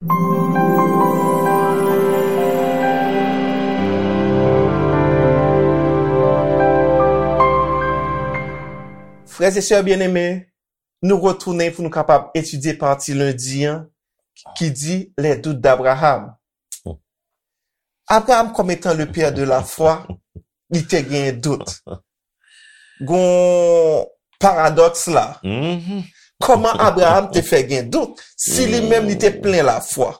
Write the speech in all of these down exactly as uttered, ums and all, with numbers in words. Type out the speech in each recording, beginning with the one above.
Frè e sè byeneme, nou retounen pou nou kapab etidye pati lendi an ki di Les doutes d'Abraham. Abraham, comme étant le père de la foi, li te gen dout. Gon paradòks la. Kòman Abraham te fè gen dout si li menm li te plen lafwa?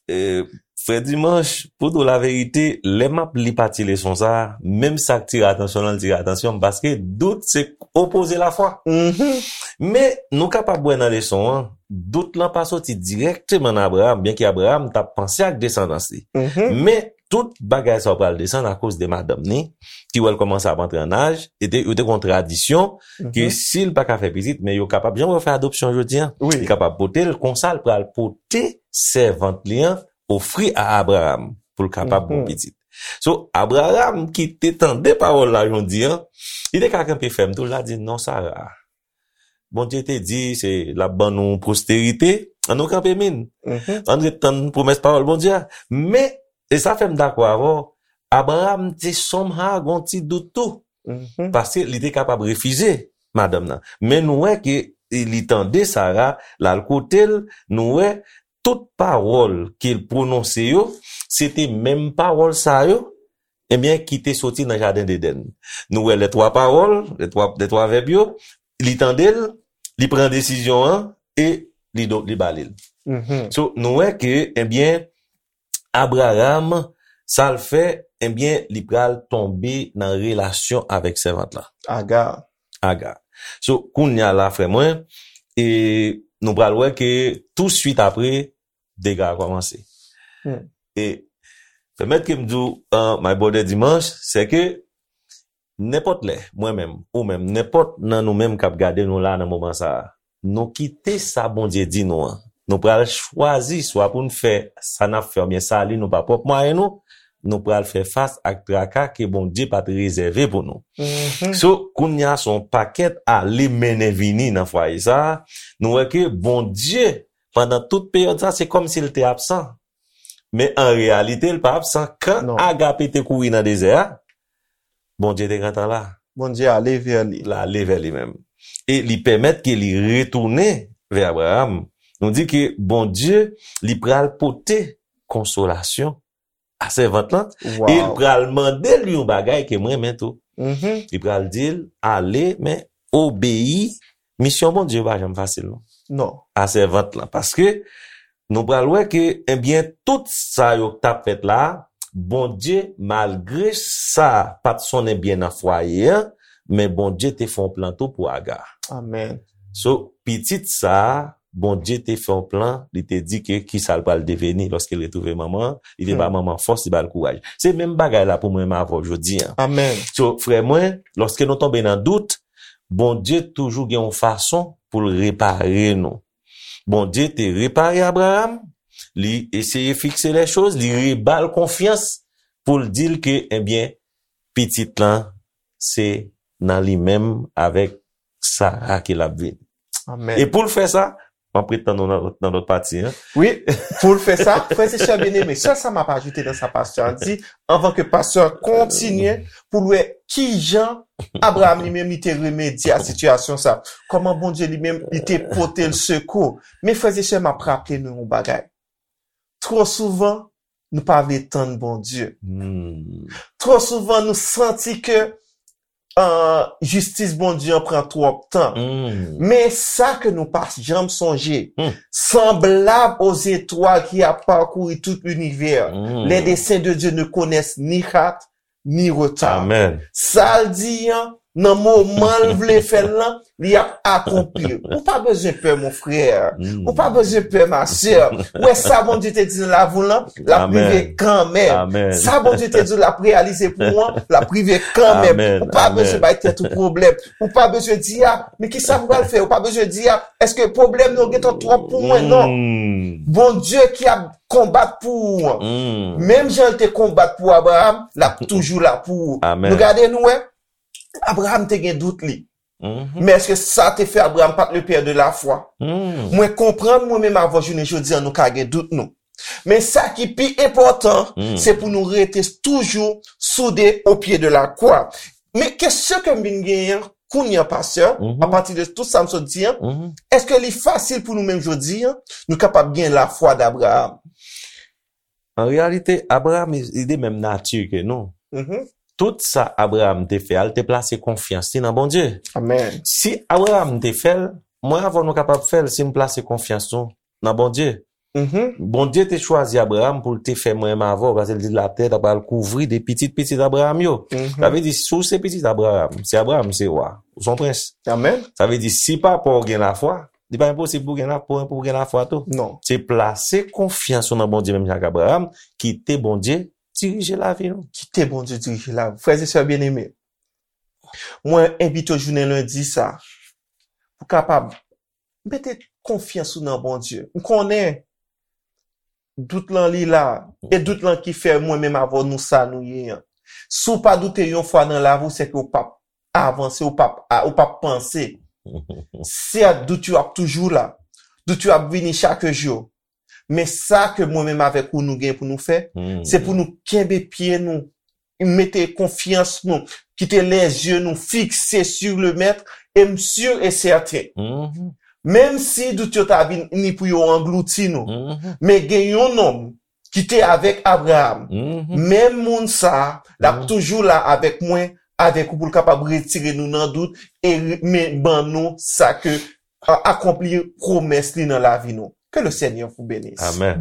E, Frè Dimanch, pou di w laverite, lè m ap li pati leson sa a, menm sa k tire atansyon nan, l tire atansyon m, paske dout se opoze lafwa. Men, nou kapab wè nan leson an, dout lan pa soti dirèkteman nan Abraham, byenke Abraham t ap panse ak desandans li. Men, tout bagay sa yo pral desann akoz de madanm ni, ki wè l kòmanse ap antre an aj, e te, yo te gon tradisyon ke si l pa ka fè pitit, men yo kapab, jan yo fè adopsyon jodi an, li kapab pote l, konsa l pral pote sèvant li an, ofri a Abraham pou l kapab bon pitit. So, Abraham ki te tande pawòl la jodi an, li te ka kanpe fèm tou, l a di, non, Sara, Bondye te di se l ap ban nou posterite, ann nou kanpe min. Ann ret tann pwomès pawòl Bondye a. Men, e sa fè m dakò avè w, Abraham te somehow gon ti dout tou. Paske li te kapab refize madanm nan. Men nou wè ke li tande Sara, l al kote l, nou wè tout pawòl ke l pwononse yo, se te menm pawòl sa yo, ebyen, ki te soti nan jaden Edenn. Nou wè lè twa pawòl, lè twa, lè twa vèb yo, li tande l, li pran desizyon an, e li, do- li bale l. So, nou wè ke, ebyen, Abraham, sa l fè, ebyen, li pral tonbe nan relasyon avèk sèvant la. Aga. Aga. So, kounye a la, frè mwen, e nou pral wè ke tou swit apre, dega a kòmanse. E pèmèt ke m di w, uh, my brother Dimanch, se ke nenpòt lè, mwen menm, ou menm, nenpòt nan nou menm k ap gade nou la nan moman sa a, nou kite sa Bondye di nou an. Nou pral chwazi swa pou n fè sa n ap fè oubyen sa li nou pa pwòp mwayen nou, nou pral fè fas ak traka ke Bondye pa t rezève pou nou. So, kounye a se yon pakèt ale mennen vini nan fwaye sa a, nou wè ke Bondye, pandan tout peryòd sa, se kòmsi l te absan. Men an reyalite, l pa absan. Kan Agape te kouri nan dezè a, Bondye te gentan la. Bondye ale vè li. L ale vè li menm. E li pèmèt ke li retounen vè Abraham. Nou di ke Bondye, li pral pote konsolasyon a sèvant lan, e l pral mande l yon bagay ke m renmen tou. Li pral di l, ale, men obeyi. Misyon Bondye pa janm fasil, non. Non. A sèvant lan. Paske nou pral wè ke, ebyen, tout sa yo k t ap fèt la, Bondye, malgre sa pa t sonnen byen nan fwaye an, men Bondye te fè yon plan tou pou Aga. Amèn. So, pitit sa a, Bondye te fè yon plan, li te di ke kisa l pral deveni lòske l retwouve manman an, li te ba manman an fòs, li ba l kouraj. Se menm bagay la pou mwen menm avè w jodi an. Amèn. So, frè mwen, lòske nou tonbe nan dout, Bondye toujou gen yon fason pou l repare nou. Bondye te repare Abraham, li eseye fikse lè choz, li reba l konfyans pou l di l ke, ebyen, pitit lan, se nan li menm avèk Sara ke l ap vini. Amèn. E pou l fè sa, m ap ret tann nou nan lòt, nan lòt pati an. Wi, pou l fè sa, frè e sè byeneme, sèl sa m ap ajoute nan sa pastè a di, anvan ke pastè a kontinye pou l wè kijan Abraham li menm li te remedye a sitiyasyon sa. Kòman Bondye li menm li te pote l sekou. Men frè e sè, m ap raple nou yon bagay. Twò souvan, nou pa vle tann Bondye. Twò souvan, nou santi ke uh, jistis Bondye an pran twòp tan. Men sa ke nou pa janm sonje, sanblab aux étoiles qui a parcouru tout l'univers, les desseins de Dieu ne connaissent ni hâte ni retard. Sa l di an, nan moman l vle fè l lan, li ap akonpli. Ou pa bezwen pè, mon frè. Ou pa bezwen pè, ma sè. Ou wè sa Bondye te di nan lavi w lan, l ap rive kanmenm. Sa Bondye te di w l ap reyalize pou ou an, l ap rive kanmenm. Ou pa bezwen bay tèt ou pwoblèm. Ou pa bezwen di, a, men kisa m pral fè? Ou pa bezwen di, a, èske pwoblèm yo gentan twòp pou mwen? Non. Bondye ki ap konbat pou ou an. Menm jan l te konbat pou Abraham, l ap toujou la pou ou. Nou gade nou wè, Abraham te gen dout li. Men èske sa te fè Abraham pa t le pè de la fwa? Mwen konprann mwen menm avè w jounen jodi an nou ka gen dout nou. Men sa ki pi enpòtan, se pou nou rete toujou soude o pye de la kwa. Men kesyon ke m vin genyen an, kounye an, pastè, apati de tout sa m sot di an, èske li fasil pou nou menm jodi an, nou kapab gen lafwa d Abraham? An reyalite, Abraham, li de menm nati ke nou. Tout sa Abraham te fè a, li te plase konfyans li nan Bondye. Amen. Si Abraham te fè l, mwen avè w nou kapab fè l si n plase konfyans nou nan Bondye. Bondye te chwazi Abraham pou l te fè mwen menm avè w, paske l di latè ta pral kouvri de pitit pitit Abraham yo. Sa vle di, si w se pitit Abraham, si Abraham se wa, ou se yon prens. Amen. Sa vle di, si papa w gen lafwa, li pa enposib pou w gen la, pou, pou w gen lafwa tou. Non. Se plase konfyans ou nan Bondye menm jan ak Abraham, kite Bondye dirije lavi nou. Kite Bondye dirije lavi. Frè e sè byeneme, mwen envite w jounen lendi sa, pou kapab mete konfyans ou nan Bondye. M konnen dout lan li la, e dout lan ki fè mwen menm avè w nou sa nou ye an. Si w pa doute yon fwa nan lavi w, se ke w p ap avanse, w p ap, a- w p ap panse. Sèt, dout yo ap toujou la. Dout yo ap vini chak jou. Men sa ke mwen menm avèk ou nou gen pou nou fè, se pou nou kenbe pye nou, mete konfyans nou, kite lezye nou fikse sur le Maître, e m sur e sèten. Menm si dout yo ta vin ni pou yo anglouti nou, men gen yon nonm ki te avèk Abraham. Menm moun sa a, l ap toujou la avèk mwen, avèk ou pou l kapab retire nou nan dout e re- men ban nou sa ke a- akonpli pwomès li nan lavi nou. Que le Seigneur vous bénisse. Amen.